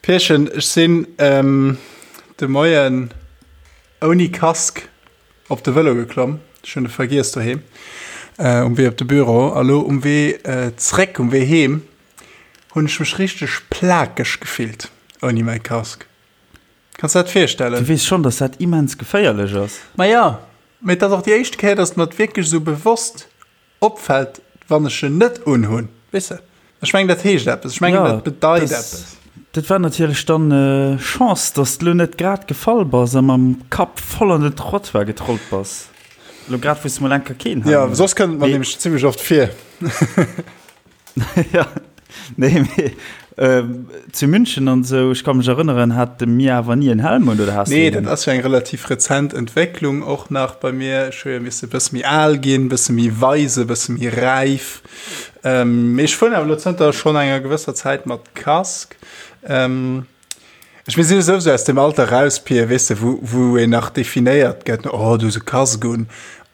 Pierchen, ech sinn de Moien ouni Casque op de Vëlo geklomm. Ech hunn e vergiess doheem um Wee op de Büro. A lo um Wee zréck, um Wee heem, hunn ech mech richteg plakeg gefillt ouni mäi Casque. Kanns de dat virstellen? Du weess schonn, dass dat immens geféierlech ass. Ma jo, mee et ass och déi éischte Kéier, dass et mer wierklech esou bewosst opfällt, wann ech en net unhunn, weess de? Ech mengen, dat heescht eppes. Ech mengen, dat bedeit eppes. Dat war natierlech dann Chance, dass de lo net grad gefall bass a mam Kapp voll an den Trottoir getrollt bass. Lo grad, wou s de mol eng Kéier keen Helm hues. Jo, soss kënnt et mer nämlech zimmlech oft vir. Ja, nee, mee zu München an esou, ech ka mech erënneren, hate mir awer ni en Helm un, oder has du Nee, dat ass jo eng relativ rezent Entwécklung och nach bei mir. Ech hu jo misse e bësse méi al ginn, e bësse méi weise, e bësse méi räif. Mee ech fueren awer elo zënter schonn enger gewësser Zäit mat Casque. Ech mir si jo souwisou aus dem Alter raus, Pir, weess de, wou, wou een nach definéiert gëtt, oh, du hues e Casque un,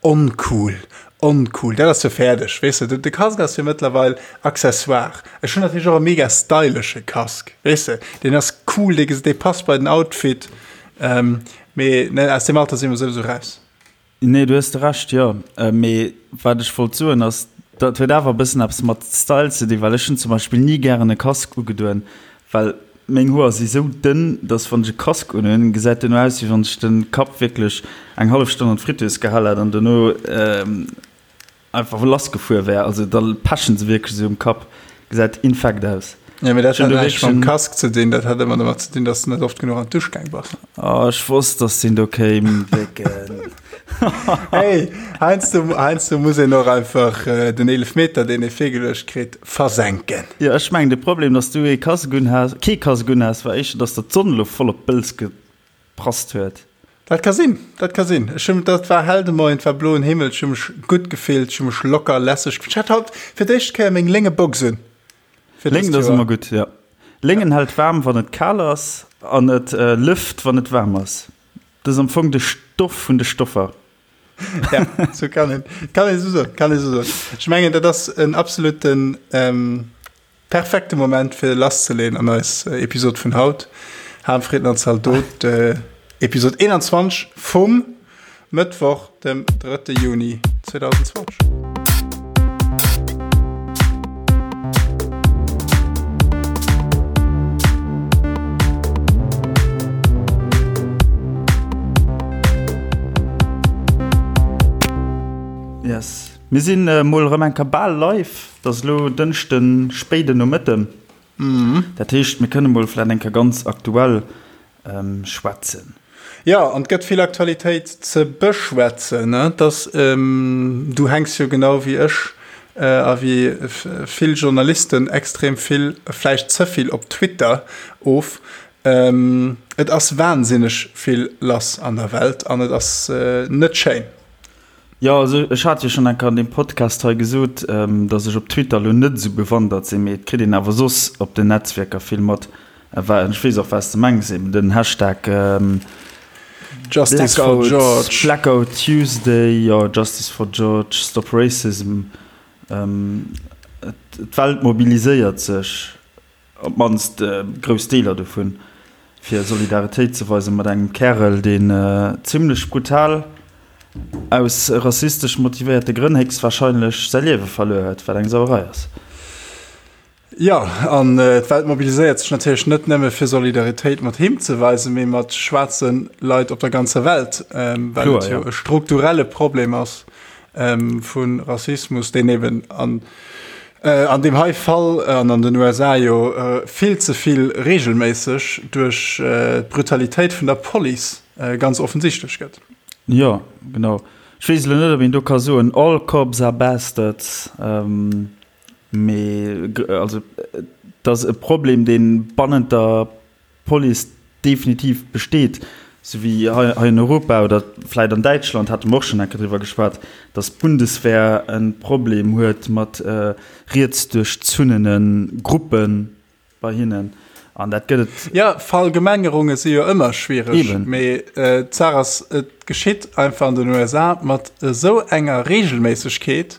oncool, oncool. Dat ass jo fäerdeg, weess de. De Casque ass jo mëttlerweil Accessoire. Ech hunn natierlech och e mega stylesche Casque, weess de, deen ass cool, dee, dee passt bei den Outfit. Mee ne, aus deem Alter si mer souwisou raus. Nee, du hues de Recht, jo. Mee wat ech wollt soen ass, dat huet awer e bëssen eppes mat Style ze dinn, well ech hunn zum Beispill ni gären e Casque ugedoen, well meng Hoer si sou dënn, dass wann ech e Casque unhunn, gesäit duerno aus, wéi wann ech de Kapp wierklech eng hallef Stonn an d'Fritteuse gehal hätt an duerno Einfach lass gefuer wär, also da pechen se wierklech esou um Kapp, gesäit infekt aus. Ja, mee dat hat näischt mam Casque ze dinn, dat hat ëmmer domat ze dinn, dass de net oft genuch an d'Dusch gaang bass. Oh, ech wosst, dass deen do kéim, Décken. Hey, heiansdo, heiansdo muss een och einfach den Eelefmeter, deen ee virgeluecht kritt, versenken. Jo, ech mengen, de Problem, dass du ee Casque un has, kee Casque un has, war éischter, dass der d'Sonn elo voll op d'Bëls Prasst huet. Dat ka sinn, dat ka sinn. Ech hunn, dat war hell de Moien, et war bloen Himmel, ech hu mech gutt gefillt, ech hu mech locker, lässeg gefillt. Ech hat haut fir d'éischt Kéier meng lénge Box un. Fir dëst Léngen ass ëmmer gutt, jo. Léngen hält waarm, wann et kal ass, an et lëft, wann et waarm ass. Dat ass am Fong de Stoff vun de Stoffer. Ja, sou kann een, kann ee sou soen, kann ee sou soen. Ech mengen, dat ass en absoluten. Perfekte Moment fir lasszeleeën an eis Episod vun haut. Harmfrieden an Zaldot, Episod 21 vum Mëttwoch, dem 3. Juni 2020. Yes. Mir sinn mol erëm eng Kéier bal live. Et ass elo Dënschden, spéiden Nomëtten. Dat heescht, mir kënne mol vläicht eng Kéier ganz aktuell schwätzen. Jo, an et gëtt vill Aktualitéit ze beschwätzen. Et ass, du hänks jo genau wéi ech a wéi vill Journalisten extrem vill, vläicht ze vill op Twitter of. Et ass wahnsinneg vill lass an der Welt an et ass net schéin. Jo, also ech hat jo schonn eng Kéier an deem Podcast hei gesot, datt ech op Twitter elo net esou bewandert sinn, mee et kritt een awer soss op den Netzwierker vill mat. Ech weess och, wat s de mengs, eben den Hashtag Justice for George, Blackout Tuesday, jo, Justice for George, Stop Racism. D'Welt mobiliséiert sech. Op d'mannst grouss Deeler dovun, fir Solidaritéit ze weisen mat engem Kärel, deen zimmlech brutal aus rassistesch motivéierte Grënn héchstwarscheinlech säi Liewe verluer huet, wat eng Sauerei ass. Jo, an d'Welt mobiliséiert sech natierlech net nëmme fir Solidaritéit mat him ze weisen, mee mat schwaarze Leit op der ganzer Welt, well et jo e strukturelle Problem ass vu Rassismus, deen eben an An deem hei Fall an an den USA jo vill ze vill reegelméisseg duerch d'Brutalitéit vun der Police ganz offensichtlech gëtt. Jo, genau. Ech weess elo net, ob een do ka soen, all cops are bastards, mee also et ass e Problem, dee bannent der Police definitiv besteet, sou wéi hei an Europa oder vläit an Däitschland, hate mer och schonn eng Kéier driwwer geschwat, datt d'Bundeswehr e Problem huet mat rietsduerchzunnene Gruppe bei hinnen. An dat gëtt et. Jo, Verallgemengerunge si jo ëmmer schwiereg, mee d'Saach ass, et geschitt einfach an den USA mat esou enger Reegelméissegkeet.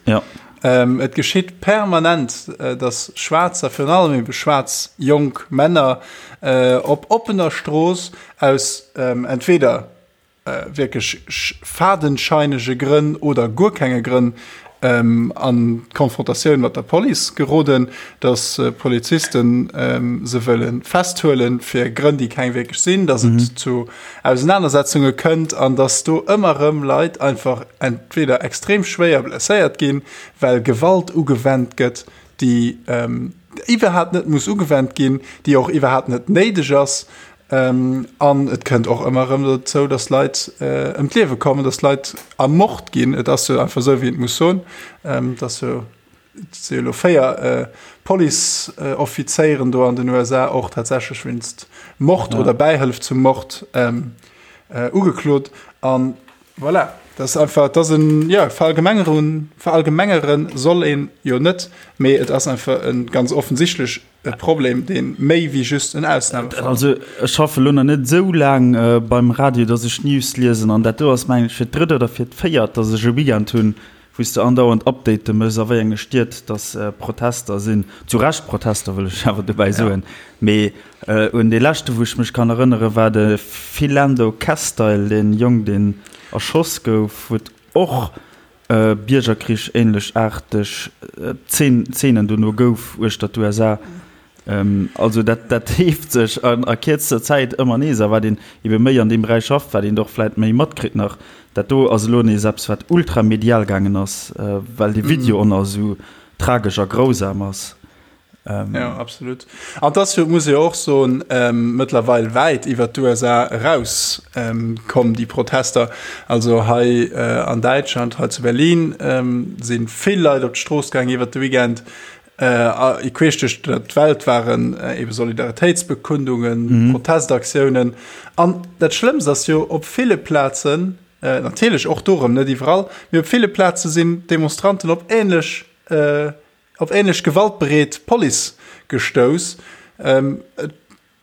Et geschitt permanent, datt Schwaarzer, virun allem ebe schwaarz jonk Männer, op oppener Strooss aus entweder wierklech fadenscheinege Grënn oder guer kenge Grënn an d'Konfrontatioun mat der Police geroden, datt Polizisten se wëlle festhuelen, fir Grënn, déi keng wierklech sinn, datt et zu Ausenanersetzunge kënnt an datt do ëmmer erëm Leit einfach entweder extrem schwéier blesséiert ginn, well Gewalt ugewennt gëtt, déi iwwerhaapt net muss ugewennt ginn, déi och iwwerhaapt net néideg ass. An et kënnt och ëmmer erëm dozou, datt Leit ëm d'Liewe kommen, datt Leit ermort ginn. Et ass jo einfach esou, wéi een et muss soen. Et ass jo, et si jo elo 4 Policeoffizéieren do an den USA och tatsächlech wéinst Mord oder Bäihëllef zum Mord ugeklot. An voilà, dat ass einfach, et ass en, jo, verallgemengeren, verallgemengere soll een jo net, mee et ass einfach e ganz offensichtlech E Problem, dee méi wéi just en Ausnamefall ass. Also ech schaffe lo nach net esou laang beim Radio, dass ech News liesen an dat do ass mengen ech fir d'drëtt oder fir d'véiert, dass ech e Weekend hunn, wou s de andauernd Update méchs a wéi enge Stied dass Protester sinn. Zu Recht Protester, wëll ech awer dobäi soen. Mee un dee leschte wou ech mech kann erënnere war de Philando Castile, dee Jong deen erschoss gouf, wou et och Biergerkrich ähnlech aarteg Zeenen dono gouf uechter d'USA. Also dat dat heeft sech an a kierzter Zäit ëmmer nees. A wat een ebe méi an deem Beräich schafft, wat een och vläit méi matkritt nach. Dat do ass elo nees eppes wat ultramedial gaangen ass, well dee Video och nach esou tragesch a grausam ass. Ähm, ja, absolut. An das jo, muss jo och soen, ähm, mëttlerweil wäit iwwer d'USA eraus ähm, kommen déi Protester. Also hei äh, an Däitschland, hei zu Berlin ähm, sinn vill Leit op d'Strooss gaang iwwer de Weekend. Äh, queesch duerch d'Welt waren äh, eben Solidaritéitsbekundungen, mhm. Protestaktiounen. An dat Schlëmmst ass jo op ville Plazen, äh, natierlech och dorëm net iwwerall, mee op ville Plaze sinn Demonstranten op ähnlech äh, Op ähnlech gewaltbereet Police gestouss.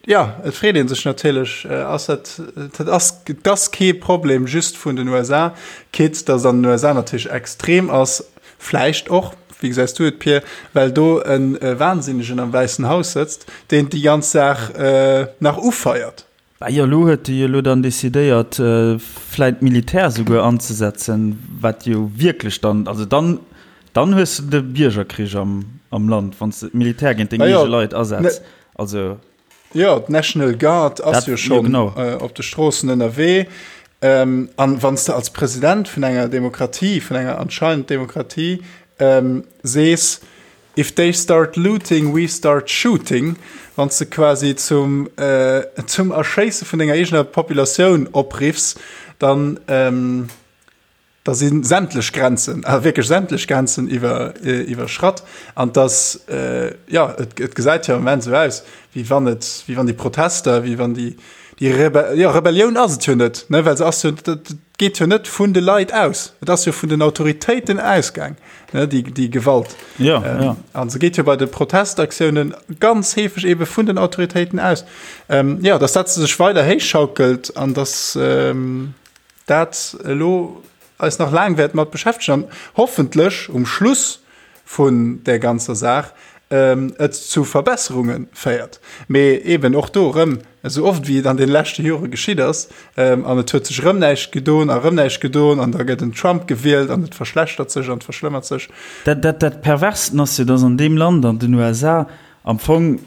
Jo, et freet ee sech natierlech, ass dat, dat ass, et ass kee Problem just vun den USA, quitte datt et an den USA natierlech extrem ass, vläicht och, wéi gesäis du et Pir, well do e Wahnsinnegen am Wäissen Haus sëtzt, deen déi ganz Saach nach ufeiert. Bah jo, elo huet e jo elo dann decidéiert, vläit d'Militär souguer anzesetzen, wat jo wierklech dann, also dann, dann hues de de Biergerkrich am, am Land, wann s de d'Militär géint deng eege Leit asetz. Also. Jo, d'National Guard ass jo schonn op de Stroossen ënnerwee. An wann s de als President vun enger Demokratie, vun enger anscheinend Demokratie, sees, If they start looting, we start shooting, wann s de quasi zum, zum Erschéisse vun denger eegener Populatioun opriffs, dann, da si sämtlech Grenzen, a wierklech sämtlech Grenzen iwwer, iwwerschratt. An dass, jo, et, et gesäit jo am Moment esou aus, wéi wann et, wéi wann déi Protester, wéi wann déi, déi Rebe, jo, Rebellioun ass et jo net, ne, well se ass jo, dat geet jo net vun de Leit aus, et ass jo vun den Autoritéiten ausgaang, ne, déi, déi Gewalt. Ja, ähm, ja. An se geet jo bei de Protestaktiounen ganz heefeg ebe vun den Autoritéiten aus. Ähm, ja, dass dat sech weider héichschaukelt an dass ähm, dat elo eis nach laang wäert mat beschäftegen an hoffentlech um Schluss vun där ganzer Saach et zu Verbesserunge féiert. Mee eben och do erëm, esou oft wéi et an de leschte Jore geschitt ass, an et huet sech erëm näischt gedon a erëm näischt gedon an da gëtt en Trump gewielt an et verschlechtert sech an et verschlëmmert sech. Dat, dat, dat Perversten ass jo, dass an deem Land, an den USA, am Fong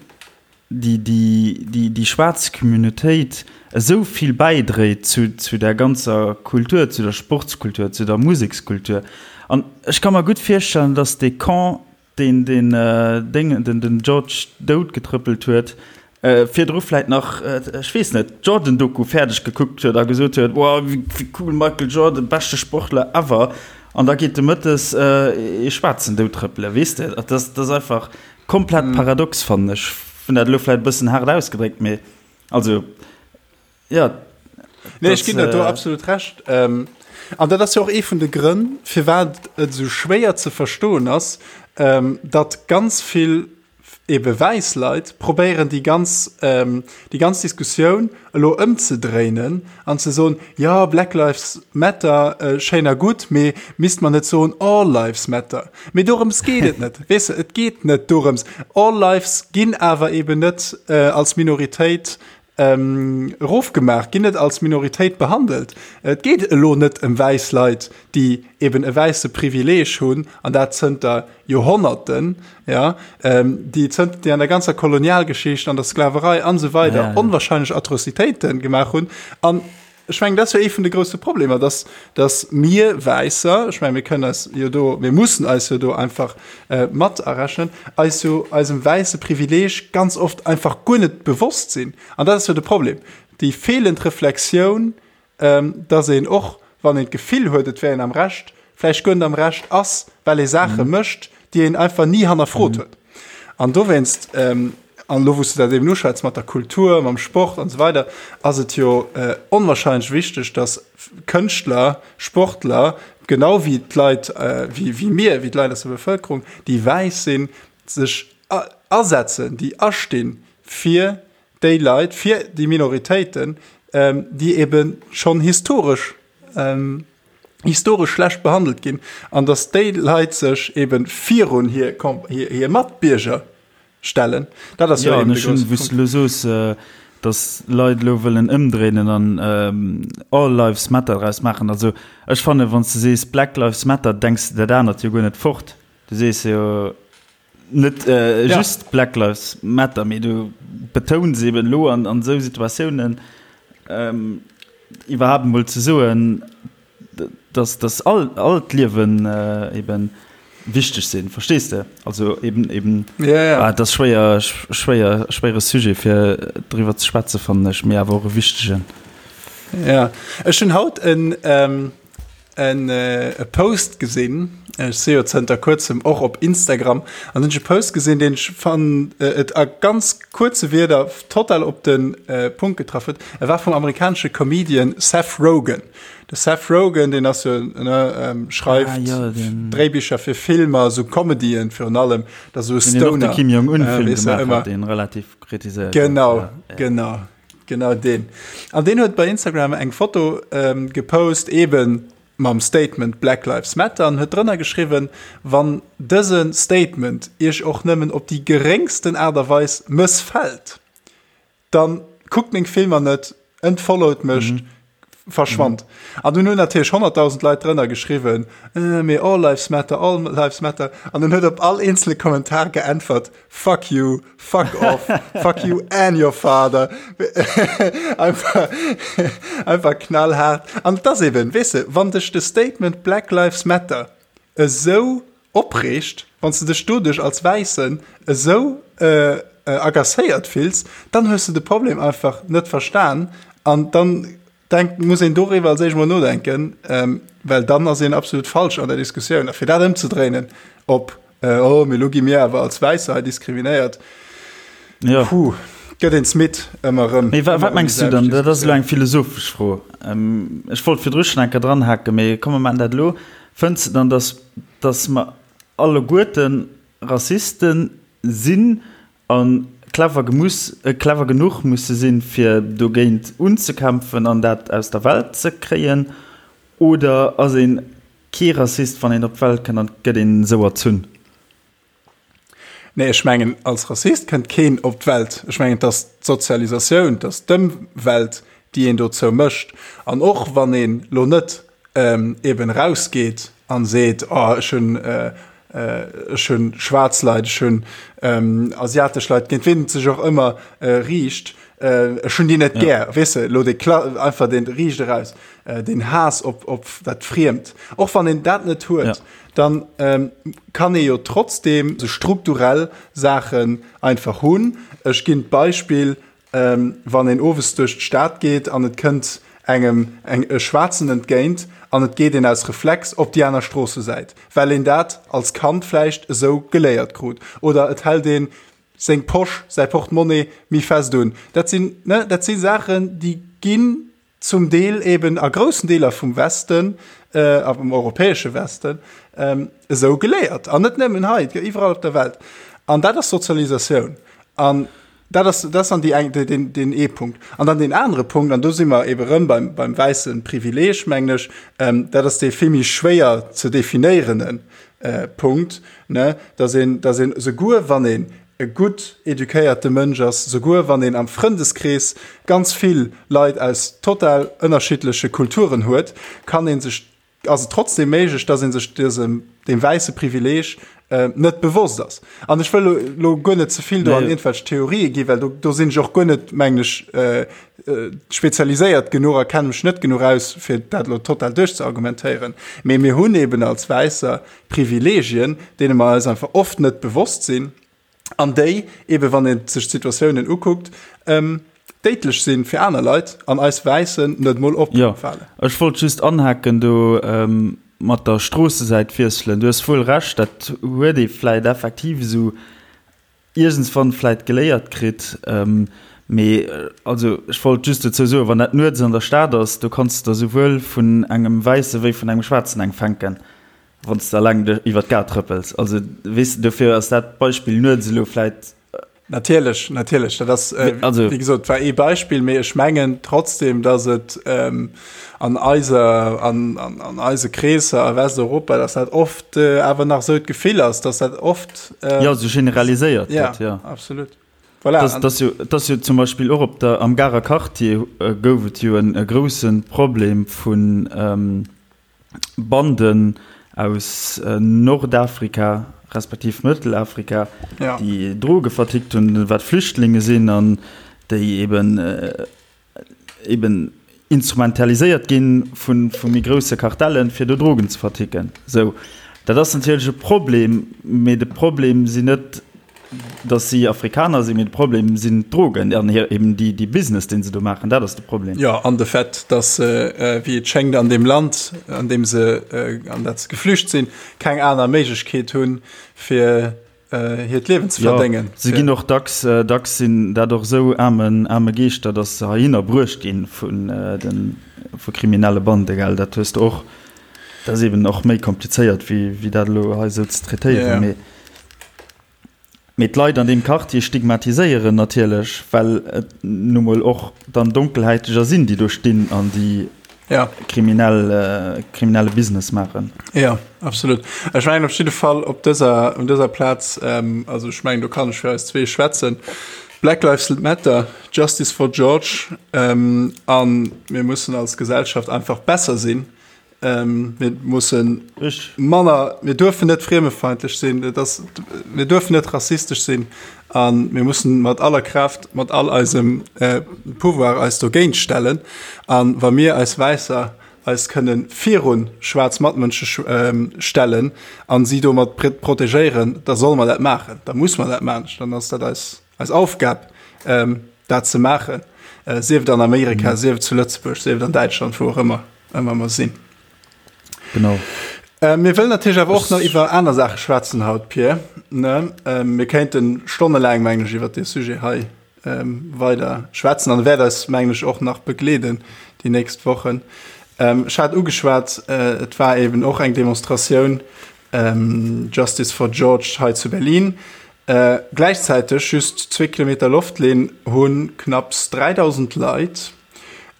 déi, déi, déi, déi schwaarz Communautéit esou vill bäidréit zu, zu der ganzer Kultur, zu der Sportskultur, zu der Musekskultur. An ech ka mer gutt virstellen, dass dee Camp, deen den Déngen, den, den George dout getrëppelt huet, virdru vläit nach, ech weess net, d'Jordan-Doku fäerdeg gekuckt huet a gesot huet, Wow, wéi, wéi cool, Michael Jordan, beschte Sportler ever. An da geet de mëttes ee Schwaarzen dout trëppelen, weess de. Dat ass, dat ass einfach, Komplett paradox fannen ech. Hunn dat elo vläit e bëssen haart ausgedréckt, mee also jo. Nee, ech ginn der do absolut Recht. An dat ass jo och ee vun de Grënn, firwat et esou schwéier ze verstoen ass, datt ganz vill. Ebe wäiss Leit probéieren déi ganz, déi ganz Diskussioun elo ëmzedréinen an ze soen, jo Black Lives Matter, schéin a gutt, mee misst mer net soen All Lives Matter? Mee dorëms geet et net, weess de, et geet net dorëms. All Lives ginn awer eben net als Minoritéit erofgemaach, ginn net als Minoritéit behandelt. Et geet elo net ëm wäiss Leit, déi eben e wäisse Privileeg hunn, an dat zënter Joerhonnerten, ja, déi zënter, déi an der ganzer Kolonialgeschicht, an der Sklaverei an esou weider onwahrscheinlech Atrocitéite gemaach hunn. An Ech mengen, dat ass jo ee vun de grousse Problemer, dass, dass mir Wäisser, ech mengen, mir kënnen eis jo do, mir mussen eis jo do einfach mat arechnen, eis jo eisem wäisse Privileeg ganz oft einfach guer net bewosst sinn. An dat ass jo de Problem, déi feelend Reflexioun, dass een och, wann een d'Gefill huet, et wär een am Recht, vläicht guer net am Recht ass, well ee Saache mécht, déi een einfach ni hannerfrot huet. An dowéinst, an elo wou s de dat eben uschwätz mat der Kultur, mam Sport an esou weider, ass et jo onwahrscheinlech wichteg, datt Kënschtler, Sportler, genau wéi d'Leit, wéi mir, wéi d'Leit aus der Bevëlkerung, déi wäiss sinn, sech asetzen, déi astinn fir déi Leit, fir déi Minoritéiten, déi ebe schonn historesch, historesch schlecht behandelt ginn an datt déi Leit sech eben virun hir, hir Matbierger stellen. Dat ass jo eben de grousse Punkt. Wou s du elo soos, datt Leit elo wëllen ëmdréinen an All Lives Matter draus maachen. Also ech fannen, wann s du sees Black Lives Matter, denks de dat anert jo guer net fort. Du sees jo net just Black Lives Matter, mee du betouns eben elo an esou Situatiounen iwwerhaapt emol ze soen, dass, dass all, all d'Liewen eben wichteg sinn, verstees de? Also eben, eben, ja, ja. Ah, dat ass schwéier, schwéier, schwéiere Sujet fir driwwer ze schwätzen, fannen ech, mee awer och e wichtegen. Ja, ech hunn haut en, ähm, en e Post gesinn, ech si jo zënter kuerzem och op Instagram, an hunn ech e Post gesinn, deen ech fannen et a ganz kuerze Wierder total op de Punkt getraff huet. E war vum amerikanesche Comedian Seth Rogen. De Seth Rogen, deen ass jo, ne, schreift ah, ja, den... Dréibicher fir Filmer, sou Comedyen virun allem, dat sou Stoner. Den Kim Jong-un-Film äh, gemaach hat, deen relativ kritiséiert. Genau, ja, ja. genau, genau deen. An deen huet bei Instagram eng Foto ähm, gepost, eben mam Statement Black Lives Matter an huet drënner geschriwwen, wann dëse Statement iech och nëmmen op déi geréngsten Aart a Weis mëssfält, dann kuckt meng Filmer net, entfollowt mech, mhm. verschwand. Mhm. An dunn hunn natierlech 100.000 Leit drënner geschriwwen, äh, mee all lives matter, all lives matter. An dann huet op all eenzele Kommentar geäntwert, fuck you, fuck off, fuck you and your father. einfach, einfach knallhart. An das eben, weess de, wann dech de Statement Black Lives Matter esou opreegt, wann s de dech doduerch als Wäissen esou agacéiert fills, dann hues de de Problem einfach net verstan an dann denk, muss een doriwwer als éischt mol nodenken, well dann ass een absolut falsch an der Diskussioun. A fir dat ëmzedréinen op oh, mee lo gi mir awer als Wäisser hei diskriminéiert, ja. Puh, gëtt een midd ëmmer erëm. Mee wat mengs du dann? Dat ass elo eng philosophesch Fro. Ech wollt virdru schonn eng Kéier dranhaken, mee komm mer maachen dat elo. Fënns de dann, dass, dass mer alleguerte Rassiste sinn a clever gemus, clever genuch musse sinn, fir dogéint unzekämpfen an dat aus der Welt ze kréien? Oder ass ee kee Rassist, wann een op d'Welt kënnt an et gëtt een esou erzunn? Nee, ech mengen, als Rassist kënnt keen op d'Welt. Ech mengen, et ass d'Sozialisatioun, et ass d'Ëmwelt, déi een dozou mécht. An och wann een elo net eben erausgeet a seet, oh ech hunn, ech hunn schwaarz Leit, ech hunn asiatesch Leit, géint wien et sech och ëmmer riicht, ech hunn déi net gär, weess de, elo dee einfach dee riicht eraus, deen Haass op, op dat Friemt. Och wann een dat net huet. dann kann ee jo trotzdem sou strukturell Saachen einfach hunn. Ech ginn d'Beispill, wann een owes duerch d'Stad geet an et kënnt engem eng e Schwaarzen entgéint an et geet een aus Reflex op déi aner Stroossesäit, well een dat als Kand vläicht esou geléiert krut. Oder et hält ee seng Posch, säi Portemonnaie méi fest un. Dat sinn, ne, dat si Saachen, déi ginn zum Deel eben a groussen Deeler vum Westen, am europäesche Westen, esou geléiert. An net nëmmen hei, et gëtt iwwerall op der Welt. An dat ass Sozialisatioun. An dat ass, dat ass dann déi eng, deen, deen ee Punkt. An dann deen anere Punkt, an do si mer ebe rëm beim, beim wäisse Privileeg, mengen ech, ähm, dat ass dee vill méi schwéier ze definéierende äh, Punkt, ne, dass een, dass een souguer wann een e gutt eduquéierte Mënsch ass, souguer wann een am Frëndeskrees ganz vill Leit aus total ënnerschiddleche Kulturen huet, kann ee sech, ass et trotzdem méiglech, dass ee sech dësem, deem wäisse Privileeg net bewosst ass. An ech wëll elo guer net ze vill do an iergendwelch Theorië ginn, well do, do sinn ech och guer net, mengen ech, spezialiséiert genuch a kenne mech net genuch aus, fir dat elo total duerchzeargumentéieren. Mee mir hunn eben als Wäisser Privilegien, deene mer eis einfach oft net bewosst sinn an déi eben, wann ee sech d'Situatiounen ukuckt, déidlech si fir aner Leit an eis Wäissen net emol opfalen. Jo, ech wollt just anhaken do mat der Stroossesäit wiesselen. Du hues wuel Recht, dat huet ee vläit effektiv esou iergendswann vläit geléiert kritt. Mee also ech wollt just dozou soen, wann dat nuets an der Stad ass, do kanns de der souwuel vun engem Wäisse wéi vun engem Schwaarzen eng fänken, wann s de alleng iwwer d'Gare trëppels. Also weess de, dofir ass dat Beispill nuets elo vläit. Natierlech, natierlech, dat ass also, wéi gesot, war ee Beispill, mee ech mengen trotzdem, datt et an eiser, an, an, an eise Kreesser a Westeuropa, datt dat oft awer nach esou d'Gefill ass, datt dat oft. Jo, esou generaliséiert gëtt, jo. Absolut. Voilà. Das, das, jo, das jo zum Beispill och op der, am Garer Quartier gouf et jo en e grousse Problem vun ähm, Banden aus Nordafrika respektiv Mëttelafrika, ja. déi Droge vertickt hunn, wat Flüchtlinge sinn an déi eben äh, eben instrumentaliséiert ginn vu vu méi grousse Kartellen, fir do Drogen ze verticken. Sou, dat ass natierlech e Problem, mee de Problem sinn net, datt si Afrikaner sinn, mee de Problem sinn d'Drogen an hir eben déi déi Business, deen se do maachen. Dat ass de Problem. Jo, an de Fait, datt se, wéi et schéngt, an deem Land, an deem se, an dat se geflücht sinn, keng aner Méiglechkeet hunn, fir hiert Liewen ze verdéngen. Jo, se ginn och dacks, dacks sinn dat och esou aarme, aarme Geeschter, datt se heihinner bruecht ginn vun den, vu kriminelle Bande, gell, dat hues de och. Dat ass eben och méi komplizéiert wéi, wéi dat elo hei esou ze traitéieren, mee, mee d'Leit an deem Quartier stigmatiséieren natierlech, well et nu mol och dann Donkelhäiteger sinn, déi do stinn an déi, ja. kriminell, kriminelle Business maachen. Ja, absolut. Ech mengen op jidde Fall op dëser, un dëser Plaz, ähm, also ech mengen do kann ech fir eis zwee schwätzen, Black Lives Matter, Justice for George, ähm, an mir mussen als Gesellschaft einfach besser sinn. Ähm, mir mussen manner, mir duerfen net friemefeindlech sinn, et ass, mir duerfen net rassistesch sinn an mir mussen mat aller Kraaft, mat all eisem äh, Pouvoir eis dogéint stellen. An wa mir eis Wäisser eis kënnen virun schwaarz Matmënsche ähm, stellen an si domat protegéieren, da solle mer dat maachen, da muss mer dat maachen, dann ass dat eis, eis Aufgab, ähm, dat ze maachen, äh, sief et an Amerika, mhm. sief et zu Lëtzebuerg, sief et an Däitschland, wou och ëmmer ëmmer mer sinn. Genau. Äh, mir wëllen natierlech awer och nach iwwer aner Saache schwätzen haut, Pierre. Ne? Ähm, mir kéinten stonnelaang, mengen ech, iwwer dee Sujet hei ähm, weider schwätzen an wäert eis, mengen ech, och nach begleeden déi nächst Wochen. Ähm, ech hat ugeschwat, äh, et war eben och eng Demonstratioun ähm, Justice for George hei zu Berlin. Äh, gläichzäiteg, just zwee Kilometer Loftlinn, hu knapps 3.000 Leit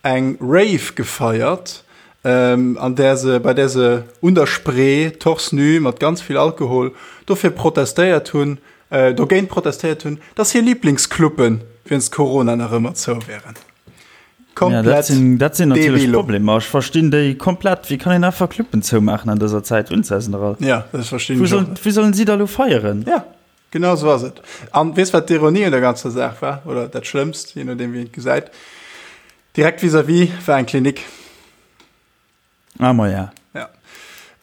eng Rave gefeiert, ähm, an där se, bei där se un der Spree, torse nu, mat ganz vill Alkohol, dofir protestéiert hunn, äh, dogéint protestéiert hunn, dass hir Liblingscluben wéinst Corona nach ëmmer zou wären. Komplett ja, dat sinn, dat sinn natierlech Problemer. Ech verstinn déi komplett. Wéi kann een einfach Cluben zoumaachen an dëser Zäit? Unzäsen all. Ja, dat verstinn ech och net. Wéi sollen si da lo feieren? Ja, genau esou ass et. An weess wat d'Ironie un der ganzer Saach war, oder dat Schlëmmst, je nodeem wéi een et gesäit, direkt vis-à-vis war eng Klinik. Ah, ma ja. Ja.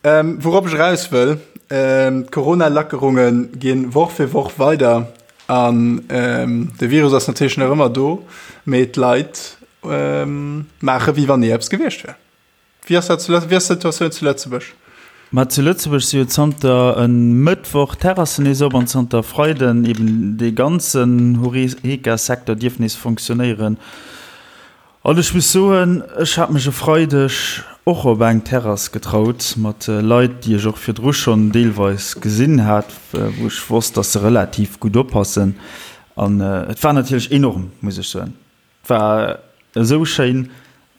Ähm, wourop ech eraus wëll, ähm, d'Corona-Lackerunge ginn Woch fir Woch weider an ähm, de Virus ass natierlech nach ëmmer do, mee d'Leit ähm, maache wéi wann ni eppes gewiescht wär. Wéi ass dat zu Lëtz-, wéi ass d'Situatioun zu Lëtzebuerg? Ma zu Lëtzebuerg si jo zanter e Mëttwoch d'Terrassen nees op an zanter Freiden eben dee ganzen Horeca-Secteur dierf nees fonctionnéieren. An ech muss soen, ech hat mech e Freideg. och op eng Terrass getraut mat Leit, déi ech och virdru schonn deelweis gesinn hat, wou ech wosst, dass se relativ gutt oppassen. An et war natierlech enorm, muss ech soen. Et war esou schéin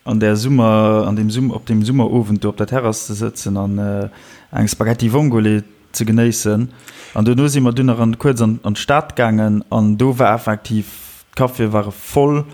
an där Summer, an deem Summer, op deem Summerowend do op der Terrass ze sëtzen an eng Spaghetti Vongole ze genéissen. An duerno si mer dunn nach an, kuerz an, an d'Stad gaangen an do war effektiv, d'Caféë ware voll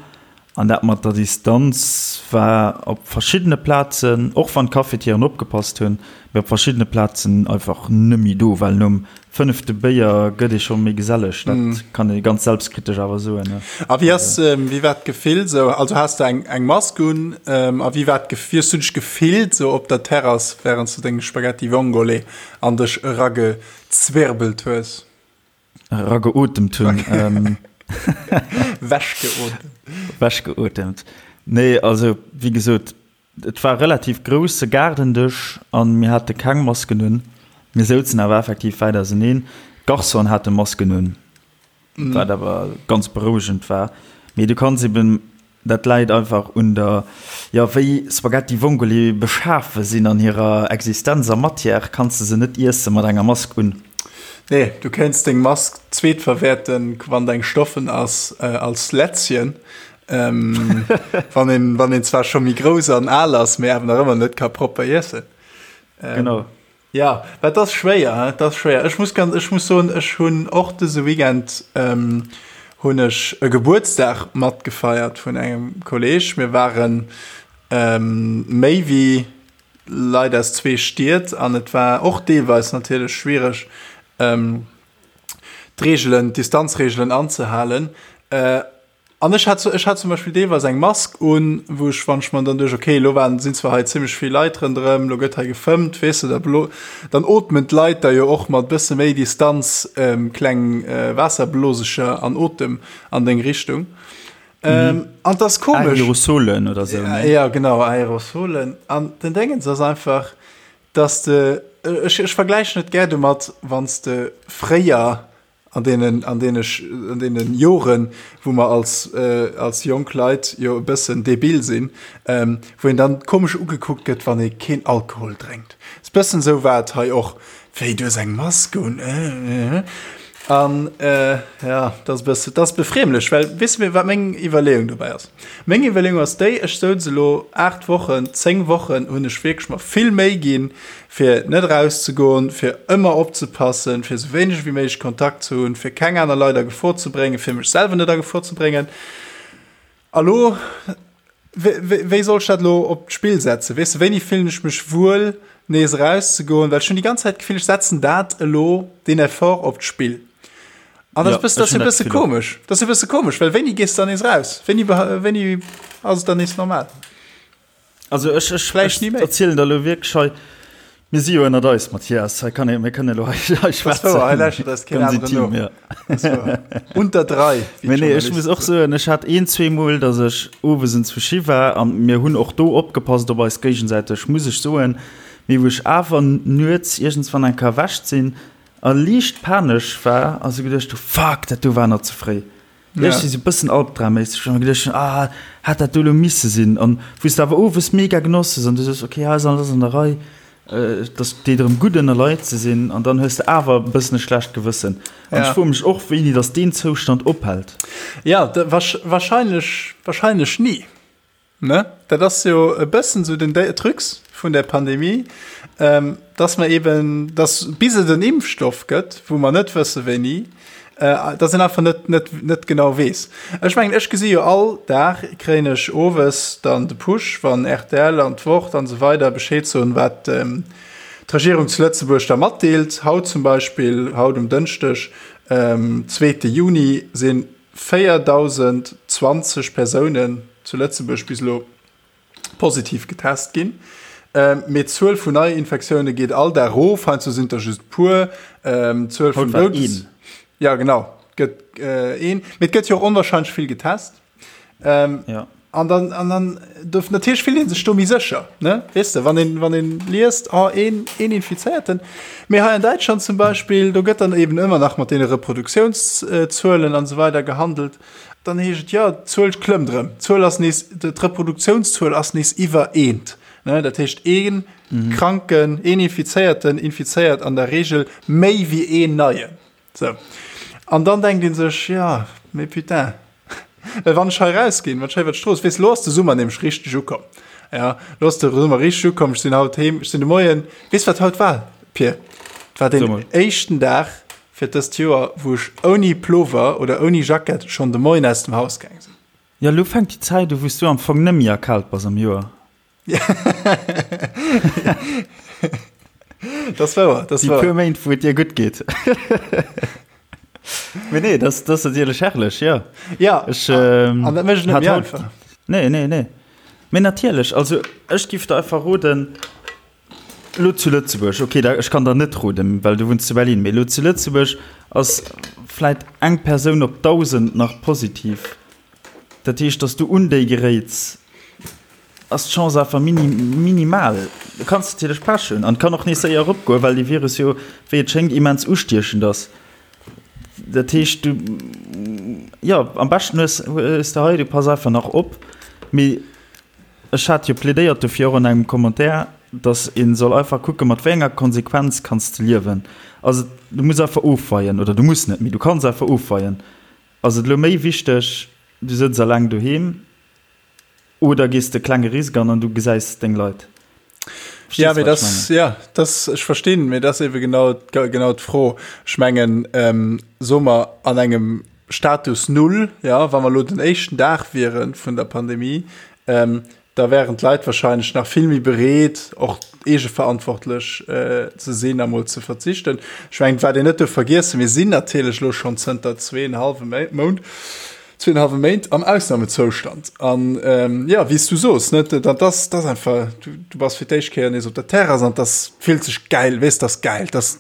an dat mat der Distanz war op verschiddene Plazen, och wann d'Cafetieren opgepasst hunn, mee op verschiddene Plazen einfach nëmmi do, well nom fënnefte Béier gëtt ee scho méi geselleg, dat kann ee ganz selbstkritesch awer soen. A wéi ass, wéi war d'Gefill sou? Also has de eng eng Mask un a wéi war d'Gef, wéi hues du dech gefillt sou op der Terrass wärend s du deng Spaghetti Vongole an dech eragezwirbelt hues? Erageotemt hunn. Wechgeotemt. Wechgeotemt. Nee, also wéi gesot, Et war e relativ grousse Gaardendësch an mir hate keng Masken un. Mir souzen awer effektiv wäit auseneen. D'Garçonen hate Masken un, wat awer ganz berouegend war. Mee du kanns eben, dat läit einfach un der, jo wéi Spaghetti Vongole beschafe sinn an hirer Existenz a Matière, kanns de se net iesse mat enger Mask un. Nee, du kéints deng Mask zweetverwäerten, wann deng stoffen ass, als Lätzchen. Ähm, wann een, wann een zwar scho méi grouss an al ass, mee awer nach ëmmer net ka propper iessen. Ähm, genau. Ja, wat ass schwéier, hein? Dat ass schwéier. Ech muss ganz, ech muss soen, ech hunn och dëse Weekend ähm, hunn ech e Gebuertsdag matgefeiert vun engem Kolleg. Mir waren ähm, méi wéi Leit aus zwee Stied an et war och deelweis natierlech schwiereg, ähm, d'Reegelen, d'Distanzreegelen anzehalen. Äh, An ech hat, ech hat zum Beispill deelweis eng Mask un, wou ech, wann ech mer dann duecht, okay, elo waren, sinn zwar hei zimmlech vill Leit ronderëm, elo gëtt hei gefëmmt, weess de, da blo, dann ootmen d'Leit da jo och mat bësse méi Distanz kleng Waasserblosecher an Otem an deng Richtung. An 't ass komesch. Aerosolen oder sou, ne? Ja, genau, Aerosolen. An den Déngens ass einfach, dass de, ech, ech vergläichen et gär domat, wann s de fréier An deenen, an deene, an deene Joren, wou mer als, als jonk Leit jo e bëssen debil sinn, wou een dann komesch ugekuckt gëtt, wann ee keen Alkohol drénkt. Ass bëssen esou war et hei och, Wéi, du hues eng Mask un? An ja, dat ass e bësse, dat ass befriemlech, well weess de, wat meng Iwwerleeung dobäi ass? Meng Iwwerleeung ass déi, ech souz elo 8 Wochen, 10 Wochen hunn ech wierklech mer vill Méi ginn, fir net erauszegoen, fir ëmmer opzepassen, fir esou wéineg wéi méiglech Kontakt ze hunn, fir keng aner Leit a Gefor ze bréngen, fir mech selwer net a Gefor ze bréngen. A lo, wéi soll ech dat elo op d'Spill setzen? Weess de, wéini fillen ech mech wuel, nees erauszegoen? Well ech hunn déi ganz Zäit d'Gefill, ech setzen dat elo, deen Effort op d'Spill. An dat ass e bësse komesch. Dat ass e bësse komesch, well wéini gees de dann nees eraus? Wéini, wéini ass et dann nees normal? Also ech, ech, Vläicht ni méi. erzielen der elo wierklech hei, mir si jo ënnert eis, Mathias, hei kann ee, mir kënnen elo hei, hei schwätzen. Wouer, hei lauschtert eis keen Ganz aneren intim, no. ja. Das ist wouer. Unter drei, wéi Mee nee, ech muss och soen, ech hat een, zweemol, datt ech owes enzwousch war an mir hunn och do opgepasst op eis géigesäiteg, muss ech soen, mee wou ech awer nuets iergendswann eng Kéier erwächt sinn a liicht panesch war a sou geduecht hu, Fuck, dat do war nach ze fréi. Ja. Ech si sou bëssen albdramméisseg, ech hu geduecht, ah, hätt dat do elo misse sinn? An wou s de awer owes mega genoss hues an du soos, okay, hei ass alles an der Rei, et ass deet erëm gutt ënner Leit ze sinn an dann hues de awer e bëssen e schlecht Gewëssen. An ech froe mech och, wéini datt deen Zoustand ophält. Ja, wahrscheinlech, wahrscheinlech ni. Ne? Dat ass jo e bëssen esou den Trucs vun der Pandemie, dass mer eben, dass bis et en Impfstoff gëtt, wou mer net wësse wéini, dass een einfach net, net, net genau weess. Ech mengen, ech gesi jo all Dag, kréien ech owes dann de Push, wann rtl an d'Wort an esou weider Bescheed soen, wat d'Regierung zu Lëtzebuerg da matdeelt. Haut zum Beispill, haut um Dënschdeg, zweete Juni, sinn 4.020 Persounen zu Lëtzebuerg bis elo positiv getest ginn. Mee d'Zuel vun Neiinfektioune geet all Dag erof, heiansdo sinn et der just e puer. D'Zuel vun Doudes. Ja genau, gëtt een. Mee et gëtt jo och onwahrscheinlech vill getest. Ja. An dann, an dann do, natierlech fillt ee sech do méi sécher, ne? Weess de, wann een, wann een liest, oh, een, een Infizéierten. Mee hei an Däitschland zum Beispill, do gëtt dann eben ëmmer nach mat deene Reproduktiounszuelen an esou weider gehandelt. Dann heescht et, jo, d'Zuel klëmmt erëm, d'Zuel ass nees, d'Reproduktiounszuel ass nees iwwer eent. Ne? Dat heescht, ee Kranken, een Infizéierten infizéiert an der Reegel méi wéi een Neien. Sou. An dann denkt ee sech, jo, mee putain, well wann ech hei rausginn, wann ech hei iwwer d'Strooss, weess, lo ass de Summer nämlech richteg ukomm, jo, lo ass de Summer richteg ukomm, ech sinn haut heem, ech sinn de Moien, weess wat haut war, Pir? Et war deen éischten Dag fir dëst Joer, wou ech ouni Plover oder ouni Jackett schonn de Moien aus dem Haus gaang sinn. Jo, lo fänkt déi Zäit u, wou s du am Fong net méi erkaalt bass am Joer. Das wouer, das Déi wouer. puer Méint, wou et dir gutt geet. Mee nee, das, das ass natierlech herrlech, jo. Ja, Ech, ähm, an dat mécht et net hat méi haut- einfach. Nee, nee, nee. Mee natierlech, also ech giff der einfach roden, lo zu Lëtzebuerg, okay, da, ech kann der net roden, well du wunns zu Berlin, mee lo zu Lëtzebuerg ass vläit eng Persoun op 1.000 nach positiv. Dat heescht, dass du un déi geréits, ass d'Chance awer mini, minimal. Du kanns natierlech Pech hunn an et kann och nees séier eropgoen, well dee Virus jo, wéi et schéngt, immens ustiechend ass. Dat heescht, du, jo, am beschten hues, hues de hei, du pass einfach nach op. Mee ech hat jo plädéiert dofir och an engem Commentaire, dass ee soll einfach kucken, mat wéi enger Konsequenz kanns de liewen. Also du muss einfach ofweien, oder du muss net, mee du kanns einfach ofweien. Ass et elo méi wichteg, du sëtz eleng doheem oder gees de klenge Risk an an du gesäis deng Leit? Verstees ja, dat, das, ja, das, ech verstinn, mee dat ass ebe genau, genau d'Fro. Ech mengen ähm, soe mer an engem Status Null, ja, wa mer lo den éischten Dag wiere vun der Pandemie, ähm, da wären d'Leit wahrscheinlech nach vill méi bereet, och eegeverantwortlech ze sinn a mol ze verzichten. Ech mengen, wat een net duerf vergiessen, mir sinn natierlech elo schonn zënter zweeënhallwe Mount, zweeënhallwe Méint am Ausnamezoustand. An jo, wéi s du soos, net, dat ass, dat ass einfach, du, du bass fir d'éischt Kéier nees op der Terrass an dat fillt sech gäil, weess, dat ass gäil, dat ass,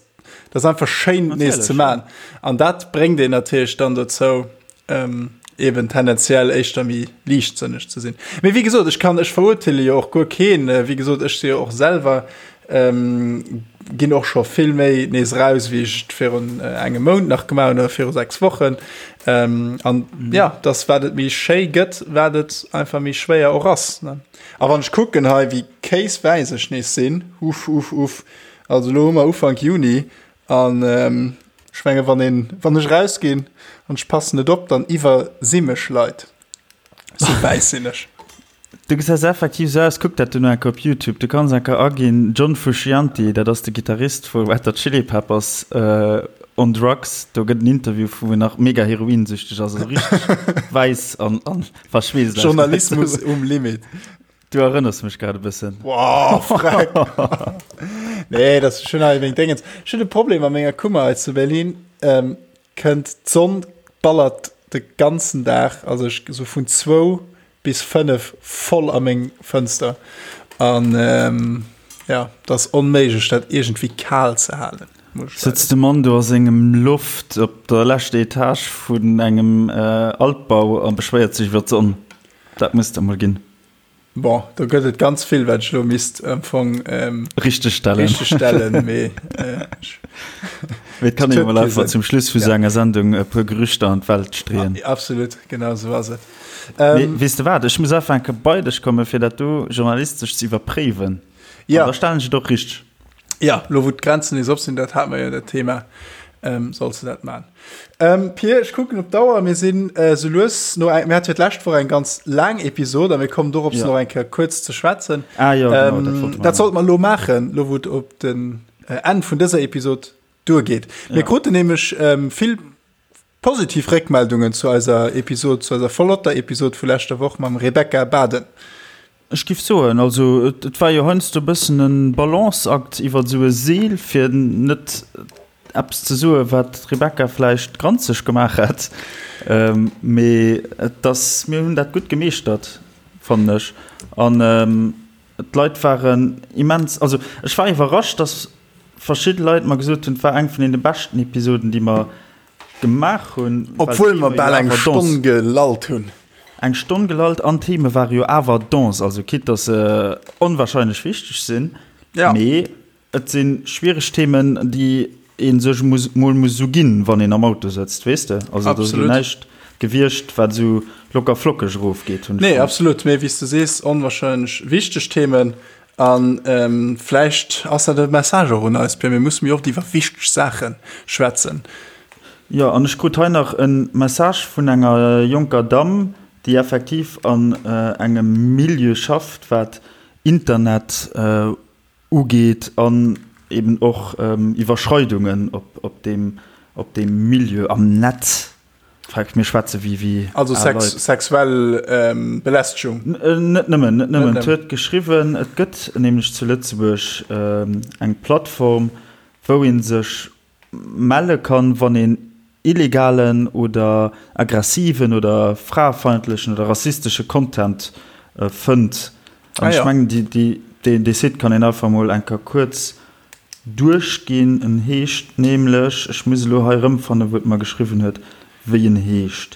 dat ass einfach schéin nees ze man. An dat bréngt een natierlech dann dozou, ähm, eben tendenziell éischter méi liichtsënneg ze sinn. Mee wéi gesot, ech kann, ech verurteele jo och guer keen. Äh, wéi gesot, ech si jo och selwer ähm, ginn och scho vill méi nees raus, wéi ech et virun äh, engem Mount nach gemaach hunn oder viru 6 Wochen. Ähm, an mhm. ja, das wat et méi schéi gëtt, wat et einfach méi schwéier och ass. Ne? A wann ech kucken hei, wéi kéiswäiss ech nees sinn, uff, uff, uff, also lo hu mer Ufank Juni an ähm, ech menge wann een, wann ech rausginn an ech passen net op, dann iwwersi mech Leit. Sou wäiss sinn ech. Du gesäis effektiv sou aus, kuck dat du no enker op Youtube, du kanns enker aginn John Frusciante, dat ass de Gittarist vu Red Hot Chili Peppers, on drugs, do gëtt en Interview wou en nach mega heroinsüchteg ass, also richteg wäiss an verschweesst. Journalismus um Limit. Du erënners mech grad e bëssen. Wow, freck. Nee, dat ass schon hei wéi Dingens. Ech hunn e Problem a menger Kummer hei zu Berlin. Ähm, kënnt d'Sonn ballert de ganzen Dag, also ech so vun zwou bis fënnef voll a meng Fënster. An ähm, ja, dat ass onméiglech, dat iergendwéi kal ze halen. Sëtzt de Mann do a sengem Loft op der leschter Etage vun engem äh, Altbau a beschwéiert sech iwwer d'Sonn. Dat muss et emol ginn. Bon, do gëtt et ganz vill, wat ech elo misst am Fong ähm, richtig stellen. Richtig stellen, mee äh, Mee et kann een emol einfach zum Schluss vu sou enger Sendung e puer Gerüchter an d'Welt streeën. Absolut, genau sou ass et. Ähm, mee weess de wat, ech muss einfach eng Kéier bei dech kommen, fir dat do journalistesch ze iwwerpréiwen. Ja. An da stellen ech et och richteg. Ja, lo wou d'Grenzen nees op sinn, dat hate mer jo dat Thema, ähm, solls de dat man. Ähm, Pir, ech kucken op d'Auer, mir sinn äh, sou lues no eng, mir hate jo d'lescht Woch eng ganz laang Episod a mir kommen dorops Ja. nach eng Kéier kuerz ze schwätzen. Ah jo, genau, ähm, dat wollte mer dat sollte mer lo maachen, lo wou et op den äh, Enn vun dëser Episod duergeet. Mir Ja. kruten nämlech ähm, vill Positiv Réckmeldungen zu eiser Episod, zu eiser flotter Episod vu leschter Woch mam Rebecca Baden. Ech giff soen, also et war jo heiansdo e bëssen e Balanceakt iwwert esou e Seel, fir net eppes ze soen, wat d'Rebecca vläicht granzeg gemaach hätt. Mee et ass, mir hunn dat gutt gemeeschtert, fannen ech. An d'Leit waren immens, also ech war iwwerrascht, dass verschidde Leit mer gesot hunn, et war eng vun deene beschten Episoden, déi mer gemaach hunn. Obwuel mer bal eng Stonn gelallt hunn. Eng Stonn gelallt an d'Theme ware jo awer dense, also quitte dass se onwahrscheinlech wichteg sinn, ja. mee et si schwiereg Themen, déi ee sech muss mol muss esou ginn, wann een am Auto sëtzt, weess de. Also et ass elo näischt gewiescht, wat esou locker flockeg erofgeet, hunn ech. Nee, absolut, mee wéi s de sees, onwahrscheinlech wichteg Themen. A vläicht ass dat e Message och un eis, Pierre, mir musse méi oft iwwer wichteg Saache schwätzen. Jo, an ech krut hei nach e Message vun enger jonker Damm, déi effektiv an engem Milieu schafft, wat Internet ugeet an eben och Iwwerschreidungen op deem Milieu am Netz. Freck, mir schwätze wéi wéi Also al sex, Leit. sexuell ähm, Belästegung. Net nëmmen, net nëmmen. Et huet geschriwwen, et gëtt nämlech zu Lëtzebuerg eng Plattform, wou ee sech melle kann, wann een illegalen oder aggressiven oder fraefeindlechen oder rassistesche Content fënnt. An ech mengen, dee Site kann een einfach mol eng Kéier kuerz duerchginn. En heescht nämlech, ech muss elo hei erëmfannen, wou et mer geschriwwen huet, wéi en heescht.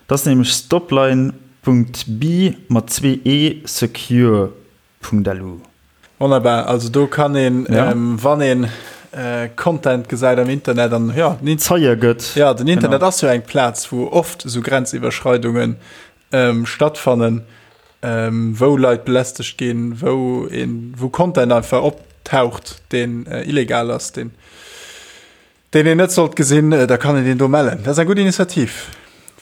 Et ass nämlech stopline.be mat zwee e secure.lu. Wonnerbar, also do kann een, ja. ähm, wann een äh, Content gesäit am Internet an ja, den Zeie gëtt. Ja, den Internet genau. ass jo eng Plaz, wou oft esou Grenziwwerschreidungen ähm, stattfannen, ähm, wou Leit belästegt ginn, wou een, wou Content einfach optaucht, deen äh, illegal ass, deen Deen een net sollt gesinn, da kann een deen do mellen. Dat ass eng gutt Initiativ.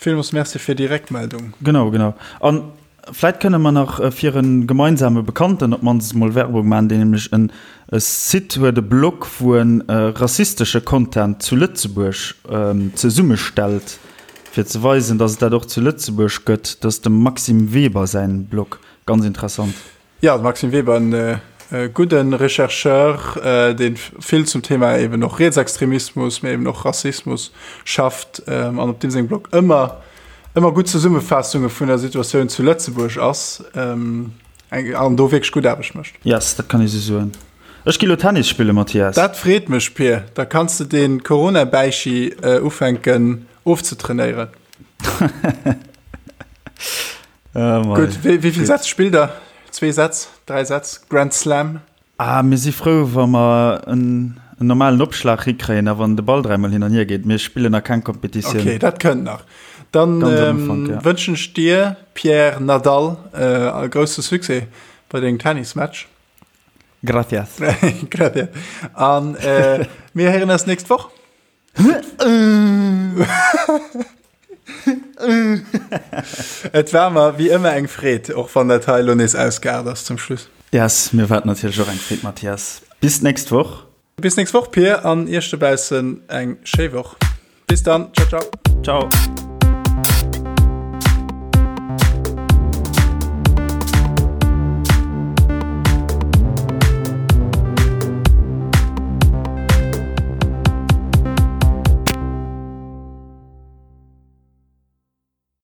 Villmools Merci fir déi Réckmeldung. Genau, genau. An vläit kënne mer nach fir e gemeinsame Bekannten op d'mannst emol Werbung maachen, deen nämlech en Site huet, e Blog, wou en rassistesche Content zu Lëtzebuerg zesummestellt, fir ze weisen, datt et dat och zu Lëtzebuerg gëtt. Dat ass dem Maxime Weber säin Blog. Ganz interessant. Jo, de Maxime Weber, en gudde Rechercheur, dee vill zum Thema eben och Rietsextremismus, mee eben och Rassismus schafft an op deem sengem Blog ëmmer, ëmmer gutt Zesummefaassunge vun der Situatioun zu Lëtzebuerg ass an do wierklech gutt Aarbecht mécht. Yes, dat kann ee sou soen. Ech gi lo Tennis spillen, Mathias. Dat freet mech, Pir. Da kanns de dee Corona-Bäichi ufänken ofzetrainéieren. Oh Gutt, wéi, wéi vill Sätz spillt der? Zwee Sätz, dräi Sätz, Grand Slam? Ah, mir si frou, wa mer en, en normalen Opschlag hikréien a wann de Ball dräimol hin an hier geet. Mir spillen nach keng Kompetitioun. Okay, dat kënnt nach. Dann Ganz am ähm, Ufank, ja. wënschen ech dir, Pierre Nadal, äh, e grousse Succès bei dengem Tennismatch. Gracias. Gracias. An äh, mir héieren eis nächst Woch. Et war mer wéi ëmmer eng Freed, och wann dat hei elo nees ausgeaart ass zum Schluss. Yes, mir war et natierlech och eng Freed, Mathias. Bis d'nächst Woch. Bis nächst Woch, Pir, an iech dobaussen eng schéi Woch. Bis dann, ciao, ciao. Ciao.